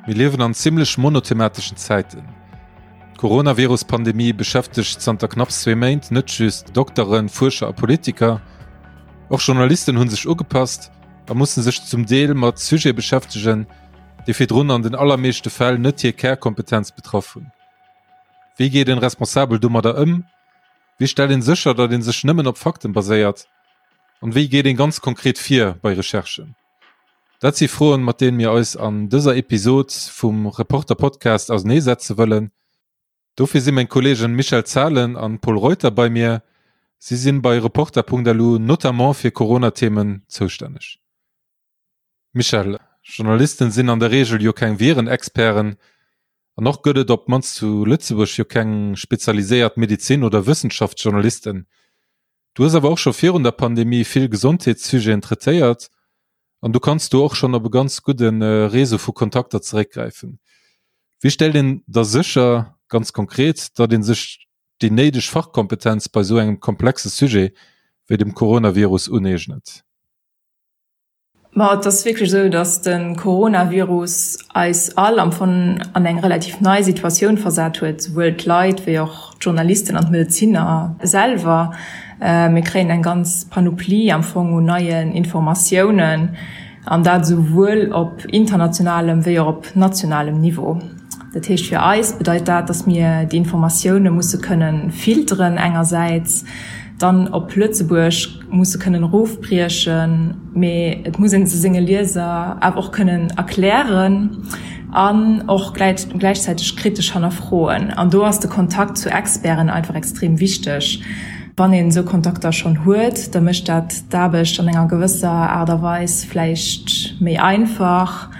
Mir liewen an zimmlech monothemateschen Zäiten. D'Coronavirus-Pandemie beschäftegt zanter knapps zwee Méint net just Dokteren, Fuerscher a Politiker. Och Journalisten hu sech ugepasst a musse sech zum Deel mat Sujete beschäftegen, déi virdrun an den allermeeschte Fäll net hir Kärkompetenz betraff hunn. Wéi geet een responsabel domadder ëm? Wéi stellt een sécher, datt een sech nëmmen op Fakten baséiert? An wéi geet een ganz konkret vir bei Recherchen? Dat si Froen, mat deenen mir eis an dëser Episod vum Reporter Podcast auserneesetze wëllen. Dofir si meng Kollegen Michèle Zahlen an Pol Reuter bei mir. Si sinn bei Reporter.lu notamment fir Corona-Themen zoustänneg. Michèle, Journalisten sinn an der Reegel jo keng Virenexperten an och gëtt et op d'mannst zu Lëtzebuerg jo keng spezialiséiert Medezin oder Wëssenschaftsjournalisten. Du hues awer och scho virun der Pandemie vill Gesondheetssujeten traitéiert an du kanns do och schonn op e ganz gudde Réseau vu Kontakter zeréckgräifen. Wéi stellt een da sécher, ganz konkret, datt ee sech déi néideg Fachkompetenz bei esou engem komplexe Sujet wéi dem Coronavirus uneegnet? Ma et ass wierklech esou, datt de Coronavirus eis all am Fong an eng relativ nei Situatioun versat huet, souwuel d'Leit wéi och d'Journalisten an d'Medezinner selwer. Mir kréien eng ganz Panoplie am Fong un neien Informatiounen, an dat esouwuel op internationalem wéi och op nationalem Niveau. Dat heescht, fir eis bedeit dat, datt mir déi Informatioune musse kënne filteren engersäits, dann op Lëtzebuerg musse kënnen erofbriechen, mee et muss ee se senge Lieser awer och kënnen erklären an och gläichzäiteg kritesch hannerfroen. An do ass de Kontakt zu Experten einfach extrem wichteg. Wann een esou Kontakter schonn huet, da mécht dat d'Aarbecht an enger gewësser Aart a Weis vläicht méi einfach.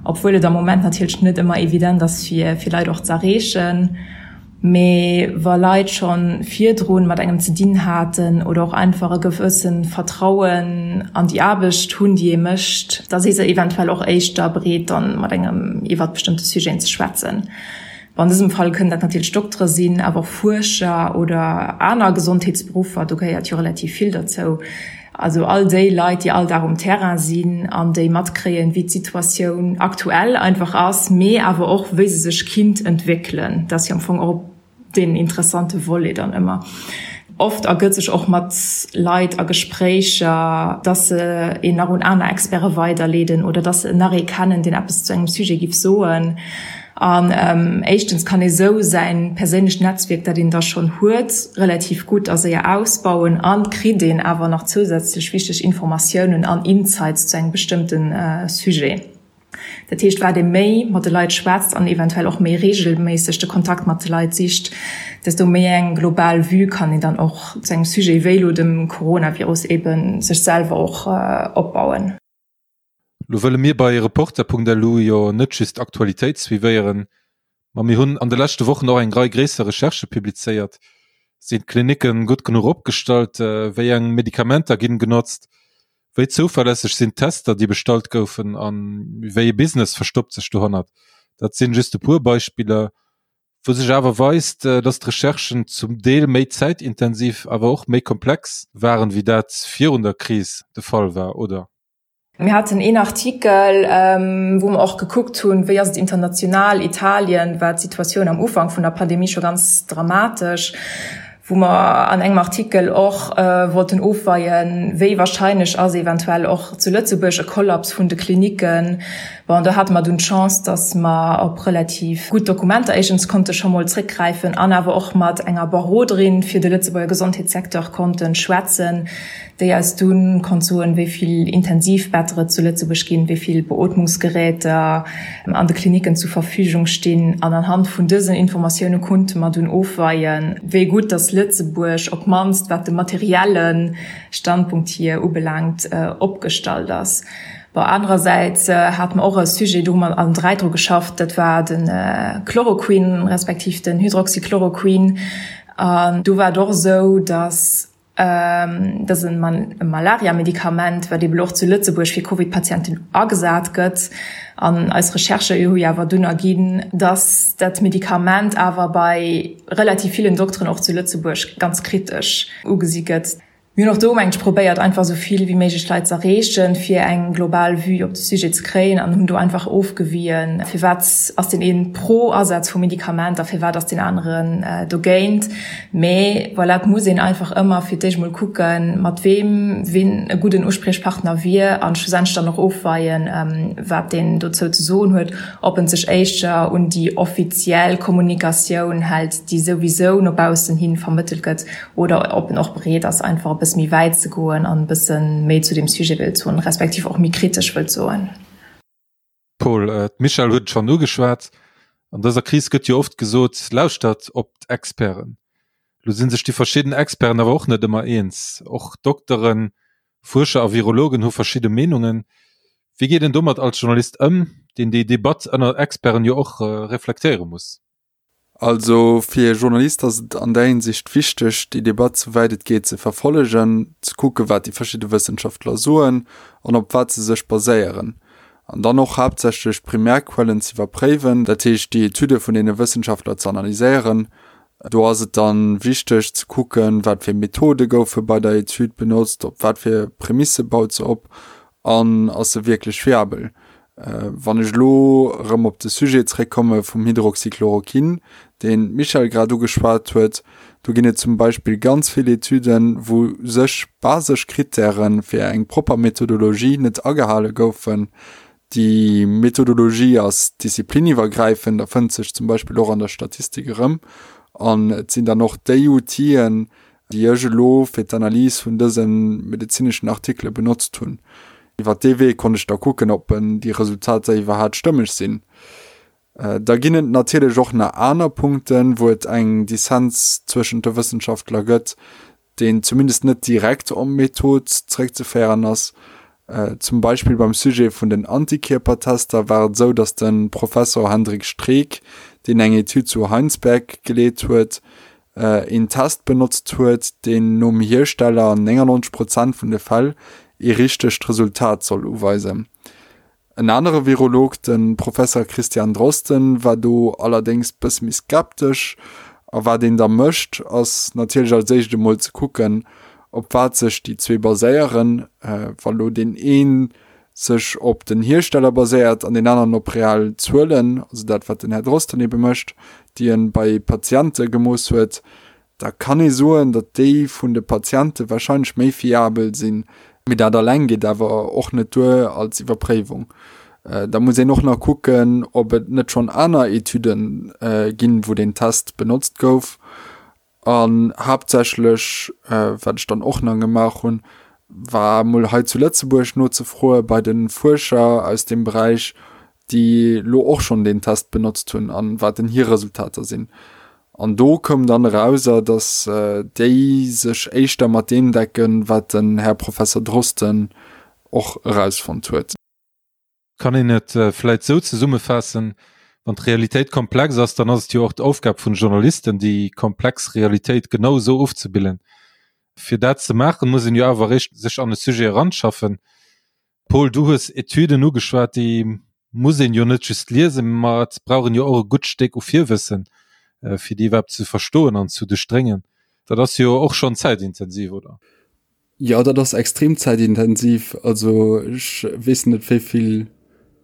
Obwuel et am Moment natierlech net ëmmer evident ass fir fir Leit och ze erreechen. Mee wa Leit scho virdrun mat engem ze dinn haten oder och einfach e gewësse Vertrauen an déi Aarbecht hunn, déi ee mécht, da si se eventuell och éischter bereet dann mat engem iwwert bestëmmte Sujeten ze schwätzen. Bon, an dësem Fall kënnen dat natierlech Doktere sinn, awer och Fuerscher oder aner Gesondheetsberuffer, do gehéiert jo relativ vill derzou. Also all déi Leit, déi all Dag um Terrain sinn an déi matkréien, wéi d'Situatioun aktuell einfach ass, mee awer och wéi se sech kinnt entwéckelen. Dat ass jo am Fong och deen interessante Volet dann ëmmer. Oft ergëtt sech och mat Leit a Gespréicher, dass se een nach un aner Experte weiderleeden oder dass se nach ee kennen, deen eppes zu engem Sujet giff soen. An éischtens kann ee sou säin perséinlecht Netzwierk, dat een da schonn huet, relativ gutt a séier ausbauen an kritt een awer nach zousätzlech wichteg Informatiounen an Insights zu engem bestëmmte Sujet. Dat heescht, wat ee méi mat de Leit schwätzt an eventuell och méi reegelméisseg de Kontakt mat de Leit sicht, desto méi eng global Vue kann een dann och zu engem Sujet wéi elo dem Coronavirus eebe sech selwer och opbauen. Lo wëlle mir bei Reporter.lu jo net just d'Aktualitéit suivéieren, ma mir hunn an de leschte Wochen och eng Rei gréisser Recherchë publizéiert. Sinn d'Klinicke gutt genuch opgestallt? Wéi eng Medikamenter ginn genotzt? Wéi zouverlässeg sinn d'Tester, déi bestallt goufen? A wéi ee Business verstoppt sech dohannert? Dat sinn just e puer Beispiller, wou sech awer weist, dass d'Recherchen zum Deel méi zäitintensiv, awer och méi komplex waren, wéi dat virun der Kris de Fall war, oder? Mir haten een Artikel, wou mer och gekuckt hunn, wéi ass et international. Italien war d'Situatioun am Ufank vun der Pandemie scho ganz dramatesch, wou mer an engem Artikel och wollten ofweien, wéi wahrscheinlech ass eventuell och zu Lëtzebuerg e Kollaps vun de Klinicken. Bon, do hate mer dunn d'Chance, datt mer op relativ gutt Dokumenter éischtens konnte scho mol zréckgräifen an awer och mat enger Beroderin fir de Lëtzebuerger Gesondheetssecteur konnte schwätzen, déi eis dunn konnt soen, wéi vill Intensivbetter et zu Lëtzebuerg ginn, wéi vill Beootmungsgeräter an de Klinicken zu Verfügung stinn. An anhand vun dësen Informatioune konnte mer dunn ofweien, wéi gutt datt Lëtzebuerg, op d'mannst wat de materielle Standpunkt hier ubelaangt, opgestallt ass. Bon, anerersäits hate mer och e Sujet, do hu mer allen 3 dru geschafft, dat war de Chloroquin respektiv den Hydroxychloroquin. An do war et och esou, datt Dat ass e Malaria-Medikament, wat eeben och zu Lëtzebuerg fir Covid-Patienten agesat gëtt. An eis Recherchë hu jo awer dunn erginn, dass dat Medikament awer bei relativ villen Dokteren och zu Lëtzebuerg ganz kritesch ugesi gëtt. Mir hunn och do, mengen ech, probéiert einfach esou vill wéi méiglech Leit ze erreechen, fir eng global Vue op de Sujet ze kréien an hunn do einfach ofgewien, firwat ass deen een pro Asaz vum Medikament a firwat ass deen aneren dogéint. Mee voilà, et muss een einfach ëmmer fir d'éischt mol kucken, mat weem ween e gudden Uspriechpartner wier an schlussendlech dann och ofweien, wat deen dozou ze soen huet, ob en sech éischter un déi offiziell Kommunikatioun hält, déi souwisou no baussen hi vermëttelt gëtt, oder ob en och bereet ass, einfach e bësse méi wäit ze goen an e bësse méi zu deem Sujet wëllt soen, respektiv och méi kritesch wëllt soen. Paul, d'Michèle huet et schonn ugeschwat, an dëser Kris gëtt jo oft gesot, lauschtert op d'Experten. Lo si sech déi verschidden Experten awer och net ëmmer eens. Och Dokteren, Fuerscher a Virologen hu verschidde Meenungen. Wéi geet een domat als Journalist ëm, deen déi Debatt ënner Experten jo och reflektéiere muss? Also fir e Journalist ass et an där Hinsicht wichteg, déi Debatt souwäit et geet ze verfollegen, ze kucke wat déi verschidde Wëssenschaftler soen an op wat se sech baséieren. An dann och haaptsächlech d'Primärquellen ze iwwerpréiwen, dat heescht déi Etüde vun deene Wëssenschaftler ze analyséieren. Do ass et dann wichteg ze kucken, wat fir Methode goufe bei der Etüd benotzt, op wat fir Prämisse baut se op an ass se wierklech fiabel. Wann ech elo erëm op de Sujet zréckkomme vum Hydroxychloroquin, deen d'Michèle grad ugeschwat huet, do ginn et zum Beispill ganz vill Etüden, wou sech basesch Krittäre fir eng propper Methodologie net agehale goufen. Déi Methodologie ass diszipliniwwergräifend a fënnt sech zum Beispill och an der Statistik erëm. An et sinn dann och déi Outiller, déi ech elo fir d'Analys vun dëse medezineschen Artikele benotzt hunn. Iwwer dee Wee konnt ech da kucken, ob déi Resultater iwwerhaat stëmmeg sinn. Da ginn et natierlech och nach aner Punkten, wou et eng Dissens zwëschent de Wëssenschaftler gëtt, deen zumindest net direkt op d'Method zeréckzeféieren ass. Zum Beispill beim Sujet vun den Antikierpertester war et esou, datt de Professor Hendrik Streeck, deen eng Etüd zu Heinsberg geleet huet, een Test benotzt huet, deen nom Hiersteller an 99 Prozent vun de Fäll ee richtegt Resultat soll uweisen. En anere Virolog, de Professer Christian Drosten, war do allerdéngs bësse méi skeptesch. A wat een da mécht, ass natierlech als éischt emol ze kucken, op wat sech déi zwee baséieren. Wa lo deen een sech op den Hiersteller baséiert an deen aneren op real Zuelen, also dat wat den Här Drosten ebe mécht, déi e bei Patiente gemooss huet, da kann ee soen, datt déi vun de Patiente wahrscheinlech méi fiabel sinn. Mee dat alleng geet awer och net duer als Iwwerpréiwung. Da muss een och nach kucken, ob et net schonn aner Etüde ginn, wou deen Test benotzt gouf. An haaptsächlech, wat ech dann och nach gemaach hunn, war emol hei zu Lëtzebuerg nozefroe bei de Fuerscher aus deem Beräich, déi elo och schonn deen Test benotzt hunn an wat denn hir Resultater sinn. An do koum dann erauser, datt déi sech éischter mat deem decken, wat den Här Professer Drosten och erausfonnt huet. Kann een et vläit sou zesummefaassen, Wann d'Realitéit komplex ass, dann ass et jo och d'Aufgab vun Journalisten, déi komplex Realitéit genau esou ofzebillen. Fir dat ze maachen, muss een jo awer eréischt sech an e Sujet eranschaffen. Paul, du hues Etüden ugeschwat, déi muss een jo net just liesen, ma et brauch een jo och e gutt Stéck u Virwëssen, fir déi iwwerhaapt ze verstoen an zu duerchdréngen. Dat ass jo och schonn zäitintensiv, oder? Jo, dat ass extrem zäitintensiv. Also ech weess net wéi vill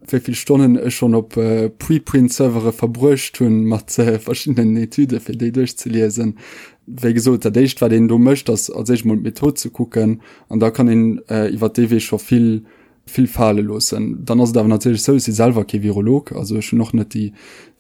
wéi vill Stonnen ech schonn op Preprint-Servere verbruecht hunn mat verschiddenen Etüde fir déi duerchzeliesen. Wéi gesot, dat éischt wat een do mécht ass als éischt mol d'Method ze kucken an da kann een iwwer dee Wee scho vill vill fale loossen. Dann ass et awer natierlech sou, ech si selwer kee Virolog, also ech hunn och net déi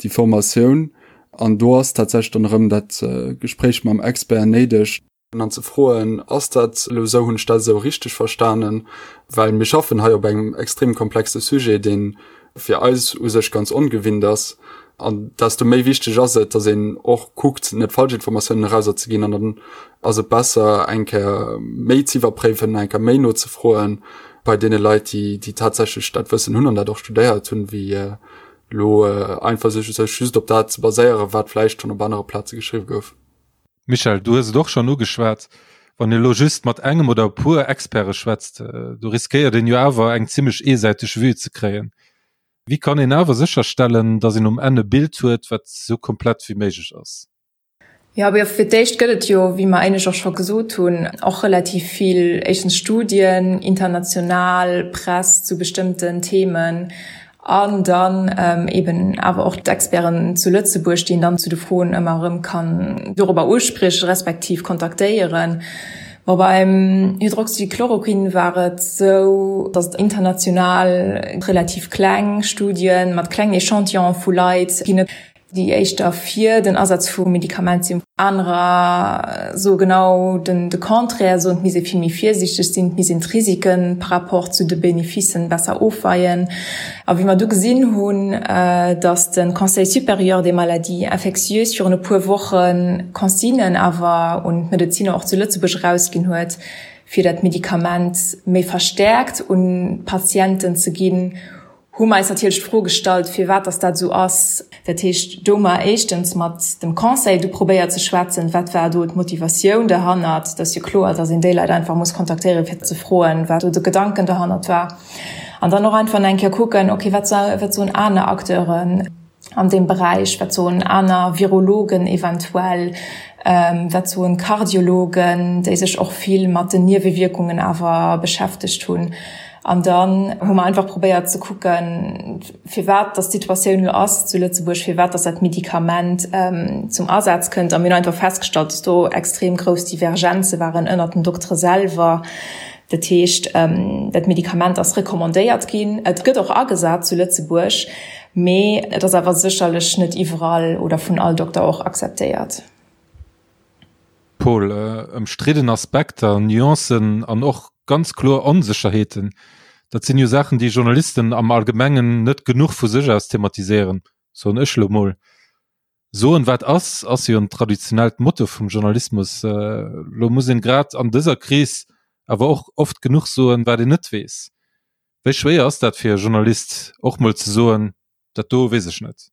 déi Formatioun an do ass tatsächlech dann erëm dat Gespréich mam Expert néideg. An ze froen, Ass dat elo esou, hunn ech dat esou richteg verstanen? Well mir schaffen hei op engem extrem komplexe Sujet, dee fir eis u sech ganz ongewinnt ass. An desto méi wichteg ass et, datt een och kuckt, net falsch Informatiounen erauserzeginn. An dann ass et besser, eng Kéier méi ze iwwerpréiwen, eng Kéier méi nozefroen bei deene Leit, déi, déi tatsächlech dat Wëssen hunn an dat och studéiert hunn, wéi elo einfach sech just op dat ze baséieren, wat vläicht schonn op anere Plaze geschriww gouf. Michèle, du hues et och schonn ugeschwat, wann ee elo just mat engem oder e puer Experte schwätzt, do riskéiert een jo awer eng zimmlech eesäiteg Vue ze kréien. Wéi kann een awer sécherstellen, datt een um Enn e Bild huet, wat esou komplett wéi méiglech ass? Jo, mee fir d'éischt gëtt et jo, wéi mer éinescht och scho gesot hunn, och relativ vill éischtens Studien, international Press zu bestëmmten Themen an dann eeben awer och d'Experten zu Lëtzebuerg, déi een dann zu de Froen ëmmer erëm kann dorobber uspriechen, respektiv kontaktéieren. Bon, beim Hydroxychloroquin war et esou, datt et international relativ kleng Studien mat klengen Echantillone vu Leit ginn. déi éischter fir den Asaz vum Medikament sinn, anerer soe genau de Contraire, soen, et misst ee vill méi virsiichteg sinn, et misst een d'Risike par rapport zu de Beneficen besser ofweien. A wéi mer du gesinn hunn, datt de Conseil supérieur des maladies infectieuses virun e puer Woche Consignen awer un d'Medeziner och zu Lëtzebuerg erausginn huet, fir dat Medikament méi verstäerkt un d'Patienten ze ginn, hu mer eis natierlech d'Fro gestallt, firwat dass dat esou ass. Dat heescht, do hu mer éischtens mat dem Conseil du probéiert ze schwätzen, wat war do d'Motivatioun derhannert. Et ass jo kloer, dass een déi Leit einfach muss kontaktéieren, fir ze froen, wat do de Gedanken derhannert war. An dann och einfach nach eng Kéier kucken, okay, wat soen aner Acteuren an deem Beräich, wat soen aner Virologen eventuell, wat soen Kardiologen, déi sech och vill mat den Niewewierkungen awer beschäftegt hunn. An dann hu mer einfach probéiert ze kucken, firwat dass d'Situatioun elo ass zu Lëtzebuerg, firwat dass dat Medikament zum Asaz kënnt. A mir hunn einfach festgestallt, dass do extrem grouss Divergenze waren ënnert den Doktere selwer. Dat heescht, dat Medikament ass recommandéiert ginn, et gëtt och agesat zu Lëtzebuerg, mee et ass awer sécherlech net iwwerall oder vun all Dokter och akzeptéiert. Paul, Ëmstridden Aspekter, Nuancen an och ganz kloer Onsécherheeten, dat sinn jo Saachen, déi Journalisten am Allgemengen net genuch vu sech aus thematiséieren, soen ech elo mol. Soen, wat ass, ass jo en traditionellt Motto vum Journalismus. Elo muss een grad an dëser Kris awer och oft genuch soen, wat een net weess. Wéi schwéier ass dat fir e Journalist, och mol ze soen, dat do weess ech net?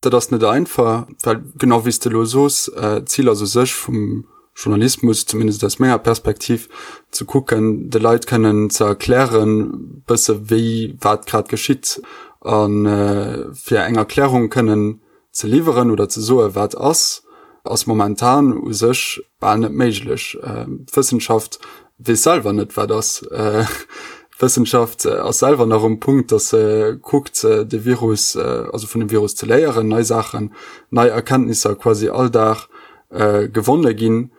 Dat ass net einfach, well genau wéi s de elo soos, d'Zil ass u sech vum Journalismus, zumindest aus menger Perspektiv, ze kucken, de Leit kënnen ze erklären, bësse wéi wat grad geschitt a fir eng Erklärung kënnen ze liwweren oder ze soe wat ass, ass momentan u sech bal net méiglech. D'Wëssenschaft weess selwer net wat ass. D'Wëssenschaft ass selwer nach um Punkt, datt se kuckt de Virus, also vun dem Virus ze léieren, nei Saachen, nei Erkenntnisser quasi all Dag gewonne ginn.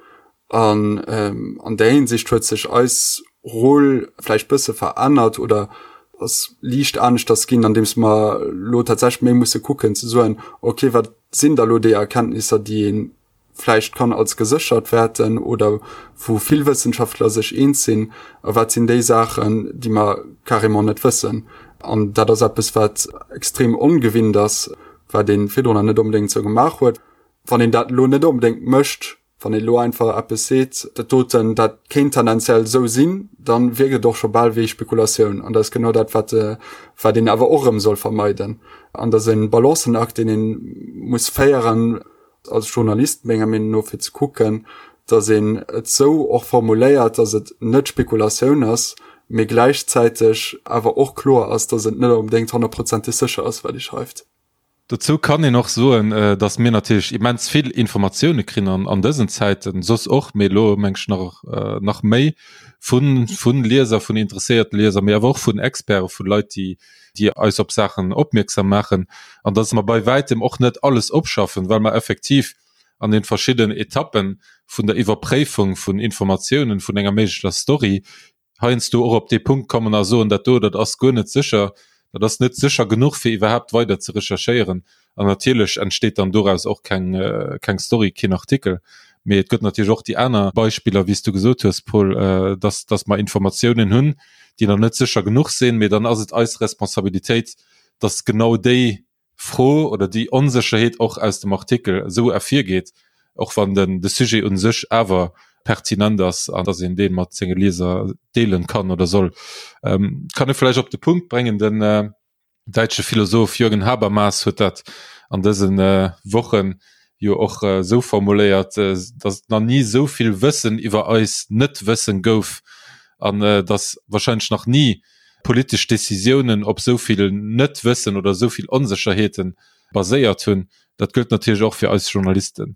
An an där Hinsicht huet sech eis Rôle vläicht bësse verännert oder ass liicht aneschters ginn, andeems mer elo tatsächlech méi musse kucken ze soen, okay, wat sinn da lo déi Erkenntnisser, déi ee vläicht kann als geséchert wäerten oder wou vill Wëssenschaftler sech eens sinn, a wat sinn déi Saachen, déi mer carrément net wëssen. An dat ass eppes, wat extrem ongewinnt ass, wat ee virdrun net onbedéngt esou gemaach huet. Wann een dat elo net onbedéngt mécht, wann een elo einfach eppes seet, dat doten, dat kéint tendenziell esou sinn, dann wierkt et och scho bal wéi Spekulatioun. An dat ass genau dat, wat, wat een awer och erëm soll vermeiden. An dat ass e Balancenakt, deen ee muss féieren als Journalist, menger Meenung no, fir ze kucken, datt een et esou och formuléiert, datt et net Spekulatioun ass, mee gläichzäiteg awer och kloer ass, datt et net onbedéngt honnertprozenteg sécher ass, wat ee schreift. Dozou kann een och soen, datt mir natierlech immens vill Informatioune krin an an dësen Zäiten, soss och, mee elo meng ech nach nach méi, vu vu Lieser, vun interesséierte Lieser, mee awer och vun Experten, vu Leit, déi déi eis op Saachen opmierksam maachen, an datt mer bei wäitem och net alles opschaffen, well mer effektiv an den verschiddenen Etappen vun der Iwwerpréifung vun Informatiounen, vun enger méiglecher Story, heiansdo och op dee Punkt kommen a soen, dat do, dat ass guer net sécher, dat ass net sécher genuch, fir iwwerhaapt weider ze recherchéieren. An natierlech entsteet dann doraus och keng, keng Story, keen Artikel. Mee et gëtt natierlech och déi aner Beispiller, wéi s du gesot hues, Paul, dass, dass mer Informatiounen hunn, déi nach net sécher genuch sinn. Mee dann ass et eis Responsabilitéit, dass genau déi Fro oder déi Onsécherheet och aus dem Artikel esou ervirgeet, och wann den de Sujet u sech awer pertinent ass an dass een dee mat senge Lieser deelen kann oder soll. Kann ee vläicht op de Punkt bréngen, den däitsche Philosoph Jürgen Habermas huet dat an dëse Wochen jo och esou formuléiert, dass et nach ni esou vill Wëssen iwwer eis Net-Wëssen gouf an dass wahrscheinlech nach ni politesch Decisiounen op esou vill Net-Wëssen oder esou vill Onsécherheete baséiert hunn. Dat gëllt natierlech och fir eis Journalisten.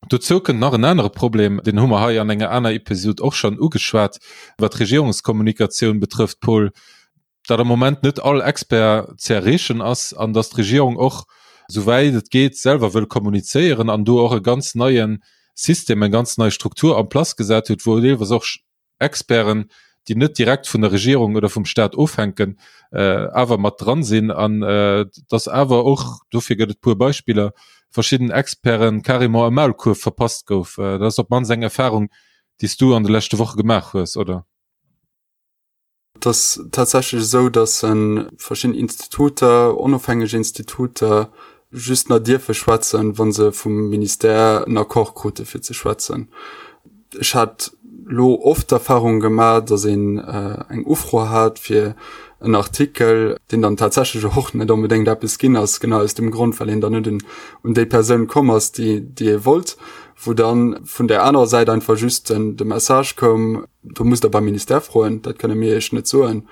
Dozou kënnt nach en anere Problem, deen hu mer hei an enger aner Episod och schonn ugeschwat, wat d'Regierungskommunikatioun betrëfft, Paul, datt am Moment net all Expert ze erreechen ass an datt d'Regierung och, souwäit et geet, selwer wëll kommunizéieren an do och e ganz neie System, eng ganz nei Struktur en place gesat huet, wou deelweis och Experten, déi net direkt vun der Regierung oder vum Staat ofhänken, awer mat dran sinn an dass awer och, dofir gëtt et puer Beispiller, verschidden Experten carrément e Maulkuerf verpasst gouf. Dat ass op d'mannst eng Erfahrung, déi s du an de leschte Woche gemaach hues, oder? Et ass tatsächlech esou, dass verschidden Instituter, onofhängeg Instituter, just nach dierfe schwätzen, wa se vum Ministère en Accord krute fir ze schwätzen. Ech hat lo oft d'Erfahrung gemaach, dass een eng Ufro hat fir en Artikel, deen dann tatsächlech och net onbedéngt eppes ginn ass, genau aus dem Grond, well een dann net un déi Persoun komm ass, déi ee wollt, wou dann vun där anerer Säit einfach just de Message koum, do musst Der beim Ministère froen, dat kënne mir Iech net soen,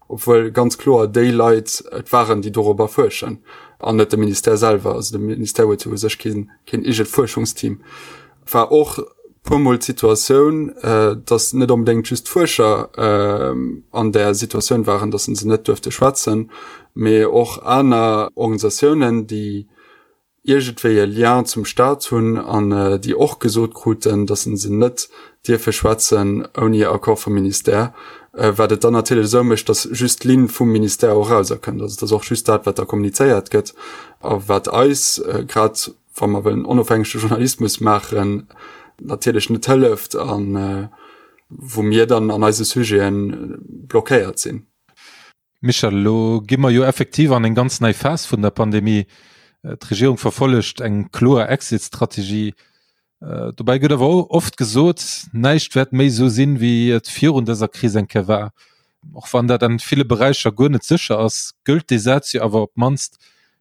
obwuel ganz kloer déi Leit et waren, déi dorobber fuerschen an net de Ministère selwer. Also de Ministère huet jo u sech keen, keen eegent Fuerschungsteam. War och puermol d'Situatioun, datt net onbedéngt just d'Fuerscher an där Situatioun waren, datt se net duerfte schwätzen, mee och aner Organisatiounen, déi iergendwéi e Lien zum Staat hunn an déi och gesot kruten, datt se net dierfe schwätzen ouni Accord vum Ministère, wat et dann natierlech esou mécht, datt just d'Linn vum Ministère och erauserkënnt. Also et ass och just dat, wat da kommunizéiert gëtt a wat eis, grad wa mer wëllen onofhängege Journalismus maachen, natierlech net hëlleft a wou mir dann an eise Sujete blockéiert sinn. Michel, elo gi mer jo effektiv an eng ganz nei Phas vun der Pandemie. D'Regierung verfollegt eng kloer Exit-Strategie. Dobäi gëtt awer oft gesot, näischt wäert méi esou sinn, wéi et virun dëser Kris eng Kéier war. Och wann dat an ville Beräicher guer net sécher ass, gëllt dee Saz jo awer op d'mannst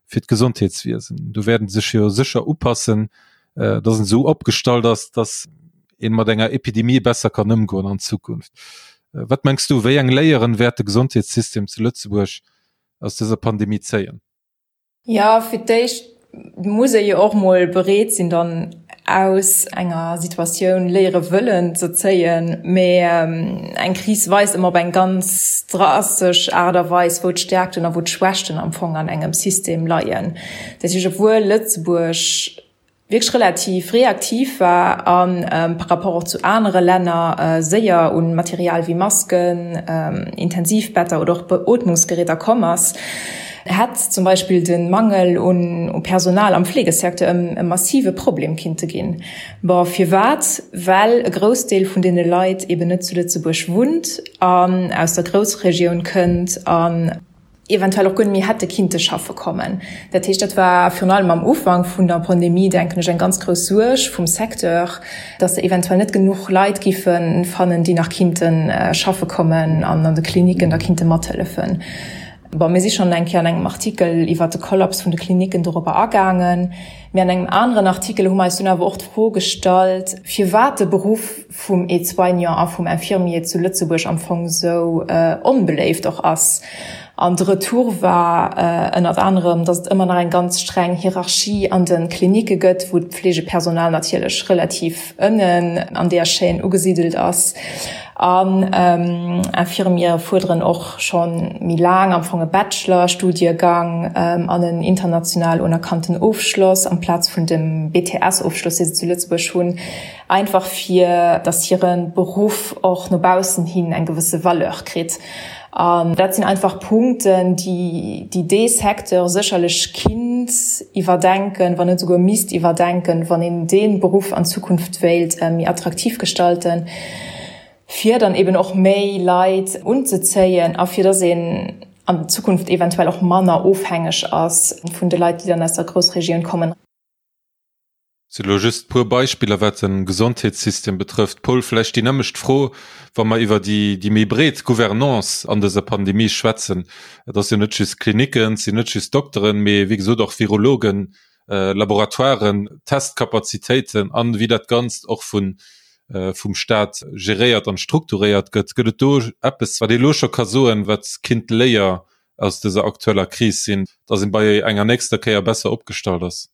fir d'Gesondheetswiesen. Do wäert en sech jo sécher upassen, dass en esou opgestallt ass, dass een mat enger Epidemie besser kann ëmgoen an Zukunft. Wat mengs du, wéi eng Léieren wäert de Gesondheetssystem zu Lëtzebuerg aus dëser Pandemie zéien? Jo, fir d'éischt muss ee jo och mol bereet sinn, dann aus enger Situatioun Léiere wëllen ze zéien. Mee eng Kris weist ëmmer op eng ganz drastesch Aart a Weis, wou d'Stäerkten a wou d'Schwächten am Fong an engem System leien. Dat heescht, obwuel Lëtzebuerg wierklech relativ reaktiv war a par rapport och zu anere Länner séier un Material wéi Masken, Intensivbetter oder och Beootmungsgeräter komm ass, hätt zum Beispill de Mangel un Personal am Fleegesecteur e massive Problem kinnte ginn. Bon, firwat? Well e Groussdeel vun deene Leit eben net zu Lëtzebuerg wunnt an aus der Groussregioun kënnt an eventuell och guer net méi hätte kinnte schaffe kommen. Dat heescht, dat war virun allem am Ufank vun der Pandemie, denken ech, eng ganz grouss Suerg vum Secteur, dass se eventuell net genuch Leit giffe fannen, déi nach kinnte schaffe kommen an an de Klinicken da kinnte mathëllefen. Bon, mir si schonn eng Kéier an engem Artikel iwwert de Kollaps vun de Klinicken dorobber agaangen. Mee an engem aneren Artikel hu mer eis dunn awer och d'Fro gestallt, firwat de Beruff vum Aide-soignant a vum Infirmier zu Lëtzebuerg am Fong esou onbeléift och ass. An de Retour war ënnert anerem, datt et ëmmer nach eng ganz streng Hierarchie an de Klinicke gëtt, wou d'Fleegepersonal natierlech relativ ënnen an där Chaîne ugesidelt ass. An Infirmiere fuerderen och scho méi laang am Fong e Bachelor-Studiegang an en international unerkannten Ofschloss amplaz vun dem BTS-Ofschloss, dee se zu Lëtzebuerg hunn, einfach fir datt hire Beruff och no baussen hin eng gewësse Valeur kritt. An dat sinn einfach Punkten, déi dee Secteur sécherlech kinnt iwwerdenken, wann net esouguer misst iwwerdenken, wann een dee Beruff an Zukunft wéilt méi attraktiv gestalten, fir dann eben och méi Leit unzezéien a fir dass een an Zukunft eventuell och manner ofhängeg ass vun de Leit, déi dann aus der Groussregioun kommen. Sinn elo just puer Beispiller wat den Gesondheetssystem betrëfft. Paul, vläicht déi nämmlecht Fro, wa mer iwwer déi déi méi breet Gouvernance an dëser Pandemie schwätzen. Et ass jo net just Klinicken, et sinn net just Dokteren, mee wéi gesot och Virologen, Laboratoiren, Testkapazitéiten an wéi dat Ganzt och vun vum Staat geréiert an strukturéiert gëtt. Gëtt et do eppes wat ee elo scho ka soen, wat kinnt d'Léier aus dëser aktueller Kris sinn, datt een bei enger nächster Kéier besser opgestallt ass?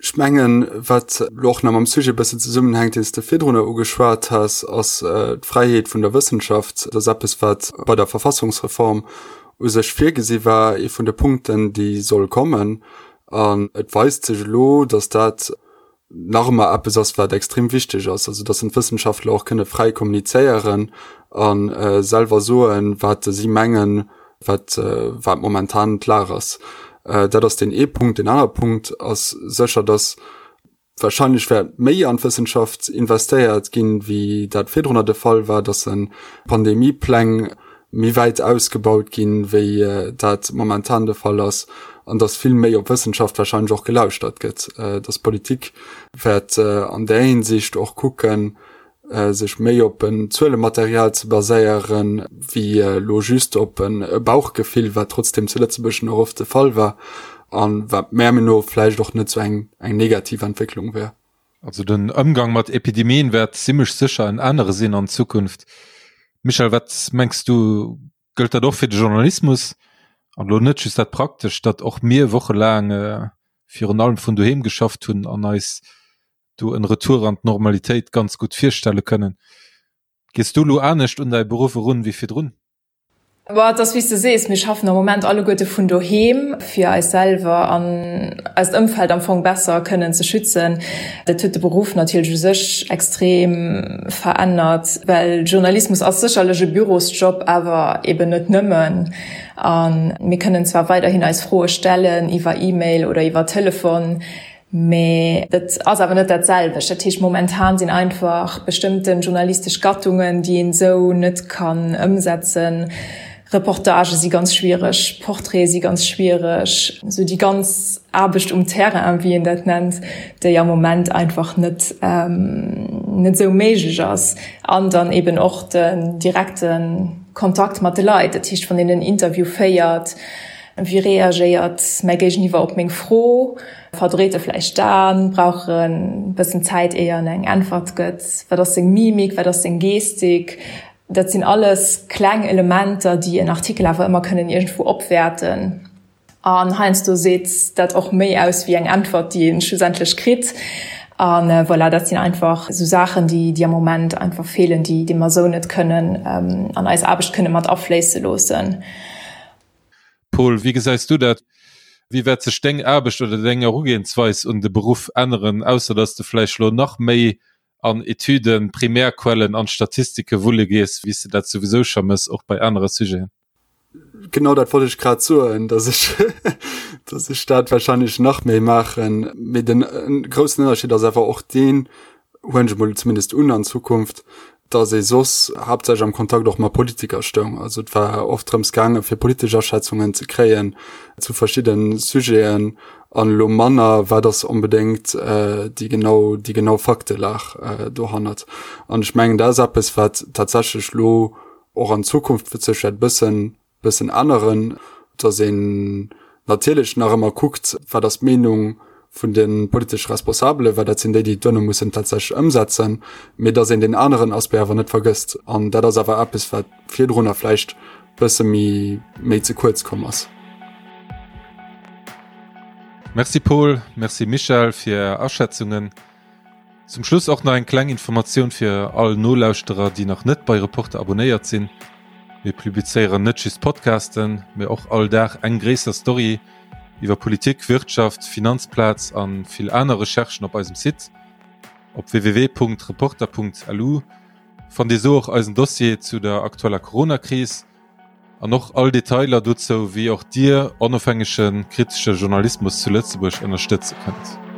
Ech mengen, wat elo och nach mam Sujet e bëssen zesummenhänkt, deen s de virdrunner ugeschwat has, ass d'Fräiheet vun der Wëssenschaft. Dat ass eppes, wat bei der Verfassungsreform u sech virgesi war, ee vun de Punkten, déi soll kommen. An et weist sech elo, datt dat nach ëmmer eppes ass, wat extrem wichteg ass, also datt d'Wëssenschaftler och kënne fräi kommunizéieren a selwer soen, wat si mengen, wat, wat momentan d'Lag ass. Dat ass deen ee Punkt. Deen anere Punkt ass sécher, datt wahrscheinlech wäert méi an d'Wëssenschaft investéiert ginn, wéi dat virdrunner de Fall war, datt se Pandemiepläng méi wäit ausgebaut ginn, wéi dat momentan de Fall ass, an datt vill méi op Wëssenschaft wahrscheinlech och gelauschtert gëtt, datt d'Politik wäert an där Hinsicht och kucken, sech méi op en Zuelematerial ze baséieren, wéi elo just op e Bauchgefill, wat trotzdem zu Lëtzebuerg nach oft de Fall war a wat mär Meenung no vläicht och net sou eng negativ Entwécklung wär. Also den Ëmgang mat Epidemien wäert zimmlech sécher en anere sinn an Zukunft. Michèle, wat mengs du, gëllt dat och fir de Journalismus? An elo net just dat Praktescht, datt och mir wochelaang virun allem vun doheem geschafft hunn an eis do en Retour an d'Normalitéit ganz gutt virstelle kënnen. Gees du elo anescht un däi Beruff erun wéi virdrun? Bon, et ass wéi s de sees, mir schaffen am Moment alleguerte vun doheem, fir eis selwer an eist Ëmfeld am Fong besser kënnen ze schützen. Dat huet de Beruff natierlech u sech extrem verännert, well Journalismus ass sécherlech e Bürosjob, awer eben net nëmmen. A mir kënnen zwar weiderhin eis Froe stellen iwwer E-Mail oder iwwer Telefon, Mee dat ass awer net dat selwecht. Dat heescht, momentan sinn einfach bestëmmte journalistesch Gattungen, déi een esou net kann ëmsetzen. Reportagë si ganz schwiereg, Portraite si ganz schwiereg, esou déi ganz Aarbecht um Terrain, wéi een dat nennt, déi am Moment einfach net net esou méiglech ass. An dann eben och den direkte Kontakt mat de Leit. Dat heescht, wann een en Interview féiert, Wéi reagéiert mäi Géigeniwwer op meng Fro? Verdréit e vläicht d'Aen? Brauch en e bëssen Zäit, éier en eng Äntwert gëtt? Wat ass seng Mimik? Wat ass seng Gestik? Dat sinn alles kleng Elementer, déi en Artikel awer ëmmer kënnen iergendwou opwäerten. An heiansdo seet dat och méi aus wéi eng Äntwert, déi ee schlussendlech kritt. A voilà, dat sinn einfach esou Saachen, déi am Moment einfach feelen, déi mer esou net kënnen an eis Aarbecht kënne mat afléisse loossen. Paul, wéi gesäis du dat? Wéi wäert sech deng Aarbecht oder deng Erugehensweis un de Beruff änneren, ausser datt s de vläicht elo nach méi an Etüden, Primärquellen an Statistike wulle gees, wéi s de dat souwisou scho mëss, och bei anere Sujeten? Genau dat wollt ech grad soen, datt ech, datt ech dat wahrscheinlech nach méi maachen. Mee den groussen Ënnerscheed ass awer och deen, huelen ech emol zumindest un an Zukunft, datt ee soss haaptsächlech am Kontakt och mat Politiker stoung. Also et war oft drëms gaange fir politesch Aschätzungen ze kréien zu verschidde Sujeten an elo manner wat ass onbedéngt déi genau déi genau Faktelag dohannert. An ech mengen dat ass eppes wat tatsächlech elo och an Zukunft sech wäert bëssen bëssen änneren, dass een natierlech nach ëmmer kuckt, wat ass d'Meenung vun de politesche Responsabelen, well dat sinn déi, déi et duerno mussen tatsächlech ëmsetzen, mee dass een deen aneren Aspect awer net vergësst. An dat ass awer eppes, wat virdrunner vläicht bësse méi, méi ze kuerz komm ass. Merci Paul, merci Michèle fir Är Aschätzungen. Zum Schluss och nach eng kleng Informatioun fir all Nolauschterer, déi nach net bei Reporter abonéiert sinn. Mir publizéieren net just Podcasten, mee och all Dag eng gréisser Story iwwer Politik, Wirtschaft, Finanzplaz a vill aner Recherchen op eisem Site. Op www.reporter.lu fannt Dir sou och eisen Dossier zu der aktueller Coronakris an och all Detailer dozou, wéi och Dir onofhängege kritesche Journalismus zu Lëtzebuerg ënnerstëtze kënnt.